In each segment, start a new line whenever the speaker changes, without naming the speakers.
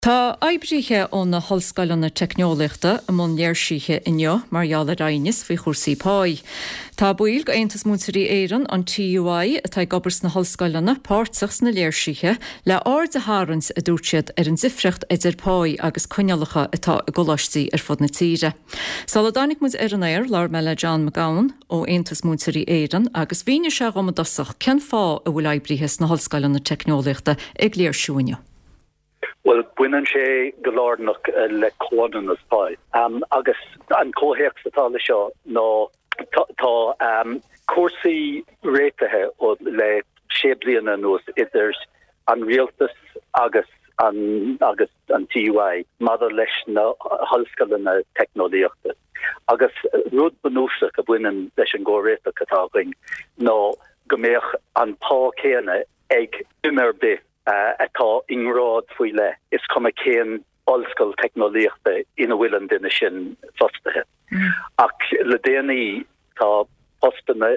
Tá oibrithe ó na hollscoileanna teicneolaíochta i mbun léirsithe inniu mar gheall ar aighneas faoi chúrsaí páí. Tá baill d'Aontas Múinteoirí Éireann, an TUI, atá ag obair sna hollscoileanna, páirteach sna léirsithe le aird a tharraingt, a dúirt siad, ar an difríocht idir páí agus coinníollacha atá i gcoláistí ar fud na tíre. Sula dtáinig muid ar an aer, labhair mé le John McGowan ó Aontas Múinteoirí Éireann agus mhínigh sé dhom i dtosach cén fáth a bhfuil oibrithe sna hollscoileanna teicneolaíochta ag léirsiú inniu.
Bhuel, baineann sé go lárnach le comhionannas pá. Agus an comhthéacs atá le seo ná tá cúrsaí réitithe le sé bliana anuas idir an rialtas agus an agus an TUI maidir leis na hollscoileanna teicneolaíochta. Agus rud bunúsach a bhaineann leis an gcomhréiteach atá againn ná go mbeadh an pá céanna ag duine ar bith atá i ngrád faoi leith, is cuma cén ollscoil teicneolaíochta ina bhfuil an duine sin fostaithe. Ach le déanaí tá postanna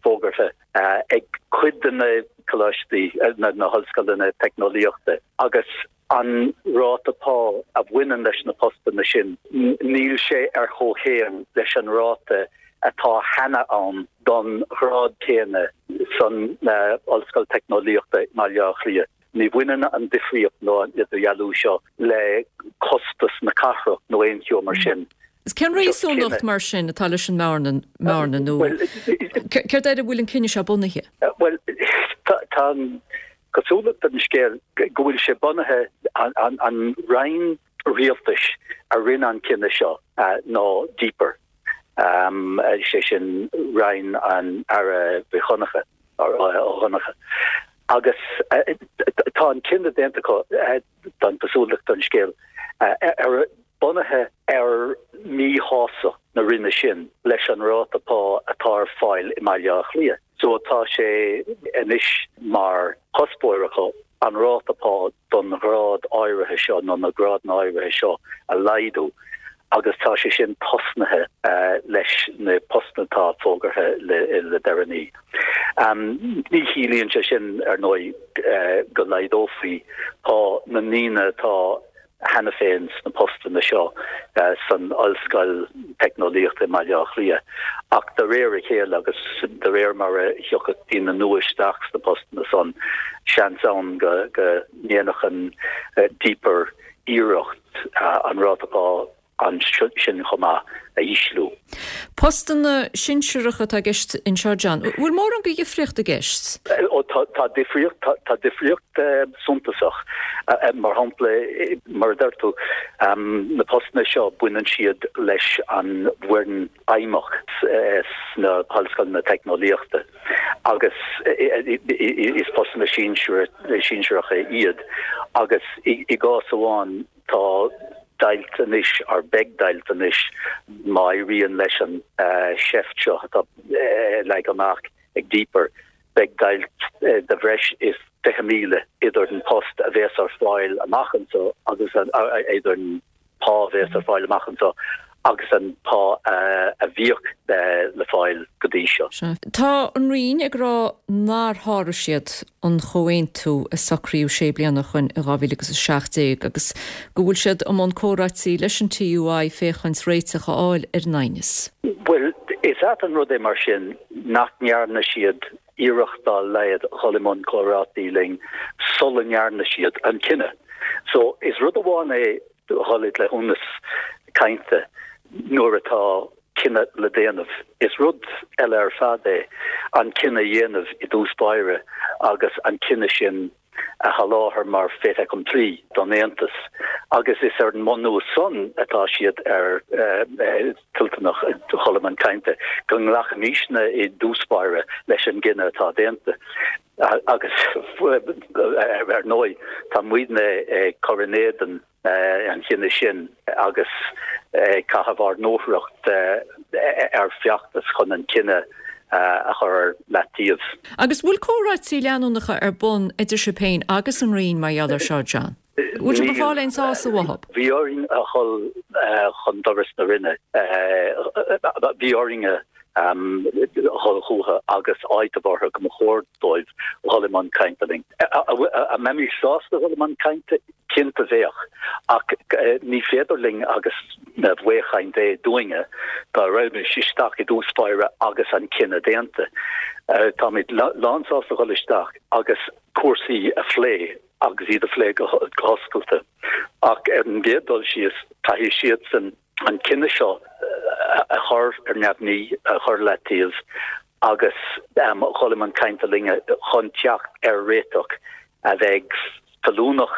fógartha ag cuid de na coláistí, na hollscoileanna teicneolaíochta agus an ráta pá a bhaineann leis na postanna sin, níl sé ar chomhchéim leis an ráta atá cheana ann don ghrád céanna san Ollscoil Teicneolaíochta i mBaile Átha Cliath. Ní bhaineann an difríocht nó an idirdhealú seo le costas na cathrach nó aon cheo mar sin.
Cén réasúnacht mar sin atá leis an mbearna nó céard air a bhfuil an cinneadh seo bunaithe?
Bhuel, tá an chosúlacht ar an scéal go bhfuil sé bunaithe, an roinn rialtais a rinne an cinneadh seo ná DPER, sé sin roinn an Aire Mhic Dhonncha, Ó Donncha. Agus tá an cinneadh déanta acu, tá an chosúlacht ar an scéal, ar bunaithe ar mhíshástacht na roinne sin leis an ráta pá atá ar fáil i mBaile Átha Cliath. So tá sé anois mar chuspóir acu an ráta pá don ghrád áirithe seo nó na grádanna áirithe seo a laghdú agus tá sé sin tosnaithe leis na postanna atá fógartha le deireanaí. Ní chiallaíonn sé sin, ar ndóigh, go laghdófaí pá na ndaoine atá cheana féin sna postanna seo san Ollscoil Teicneolaíochta i mBaile Átha Cliath ach de réir a chéile agus de réir mar a thiocfadh daoine nua isteach sna postanna san, seans ann go ndéanfadh an DPER iarracht an ráta pá ansin chomh maith a ísliú.
Postanna sinsearacha atá i gceist anseo, John. Bhfuil mórán de dhifríocht i gceist?
Ó tá, tá difríocht, tá, tá difríocht suntasach. Mar shampla, mar a deir tú, na postanna seo baineann siad leis an bhfoireann fheidhmeach sna hollscoileanna teicneolaíochta agus is postanna sinsearacha iad agus i gcás amháin Tá deighilt anois, or beidh deighilt anois, má éiríonn leis an seift seo atá leagtha amach ag DPER, beidh deighilt de bhreis is 20,000 idir an post a bhéas ar fáil amach anseo agus an, idir an pá a bhéas ar fáil amach anseo agus an pá a bhíodh le fáil go dtí seo.
Tá an Roinn ag rá nár sháraigh siad an chomhaontú a socraíodh sé bliana ó shoin in 2017 agus go bhfuil siad i mbun comhráití leis an TUI féachaint réiteach a fháil ar an aighneas.
Bhuel, is ait an rud é mar sin nach ndearna siad iarracht dá laghad dhul i mbun comhráití linn sula ndearna siad an cinneadh. So, is rud amháin é dhul i gcleithiúnas cainte nuair atá cinneadh le déanamh. Is rud eile ar fad é an cinneadh a dhéanamh i dtús báire agus an cinneadh sin a sholáthar mar fait accompli don Aontas agus is ar an mbunús san atá siad ar toilteanach dhul i mbun cainte, go nglacfaimisne i dtús báire leis an gcinneadh atá déanta. Agus ar ndóigh tá muidne ag cur in éadan an chinnidh sin agus ag caitheamh ár ndúthracht ar feachtas chun an cinneadh a chur ar leataobh.
Agus bhfuil comhráití leanúnacha ar bun idir sibh féin agus an Roinn mar gheall air seo, John? Bhfuil sibh ag fáil aon sásamh uathu?
Bhí orainn a dhul chun doras na Roinne. Bhí orainn a. Dhul chucu agus áiteamh orthu go mba chóir dóibh dhul i mbun cainte linn. An mbeimis sásta dhul i mbun cainte? Cinnte bheadh, ach ní féidir linn agus baothchaint é dúinne dá rachaimis isteach i dtús báire agus an cinneadh déanta. Táimid lánsásta dhul isteach agus cúrsaí a phlé agus iad a phlé go hoscailte ach ar an gcéad dul síos caithfidh siadsan an cinneadh seo a chur ar neamhní, a chur leataobh agus dhul i mbun cainte linne chun teacht ar réiteach a bheidh feiliúnach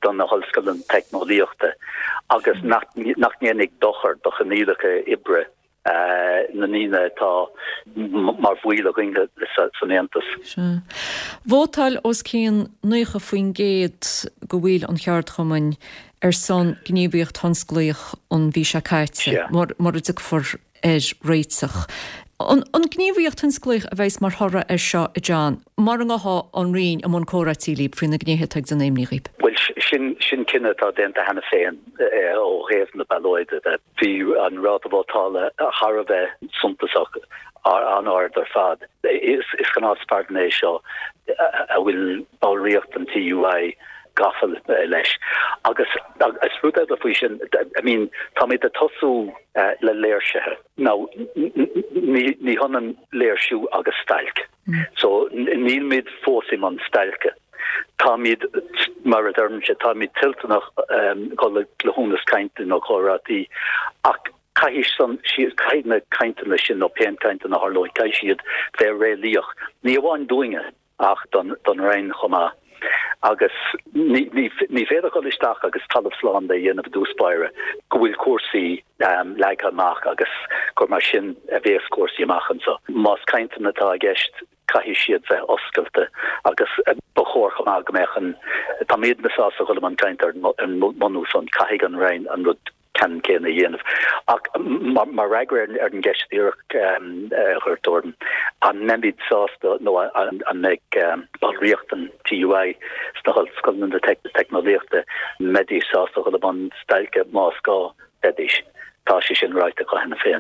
do na hollscoileanna teicneolaíochta agus nach ndéanfaidh dochar do choinníollacha oibre na ndaoine atá mar bhaill againn san Aontas.
Sea. Vótáil os cionn 90% de bhaill an cheardchumainn ar son gníomhaíocht thionsclaíoch an mhí seo caite, mura dtiocfar ar réiteach. An gníomhaíocht thionsclaíoch a bheas mar thoradh air seo, a John, mura ngabhfaidh an Roinn i mbun comhráití libh faoi na gnéithe atá ag déanamh imní dhaoib?
Bhuel, sin cinneadh atá déanta cheana féin ó thaobh na ballóide de. Bhí an ráta vótála thar a bheith suntasach, an-ard ar fad. Is gnás é seo a bhfuil ballraíocht an TUI gafa leis. Agus is rud eile faoi sin, I mean, táimid ag tosú le léirsithe. Now, ní hionann léirsiú agus stailc. So, nílmid fós i mbun stailce. Táimid, mar a deirimse, táimid toilteanach dul i gcleithiúnas cainte nó comhráití ach caithfidh san, caithfidh na cainteanna sin nó pé cainteanna a tharlóidh, caithfidh siad bheith réalaíoch, ní amháin dúinne ach don Roinn chomh maith. Agus ní féidir dul isteach agus talamh slán de a dhéanamh i dtús báire go bhfuil cúrsaí leagtha amach agus gur mar sin a bhéas cúrsaí amach anseo. Más cainteanna atá i gceist, caithfidh siad bheith oscailte agus ba chóir chomh maith go mbeadh an, táimidne sásta dhul i mbun cainte ar an mbunús san, caithfidh an Roinn an rud ceannann céanna a dhéanamh. Ach mar fhreagra ar an gceist dhíreach a chuir tú orm, an mbeimid sásta nó an mbeidh ballraíocht an TUI sna hollscoileanna teicneolaíochta, an mbeidís sásta dhul i mbun stailce más gá, bheidís. Tá sé sin ráite acu cheana féin.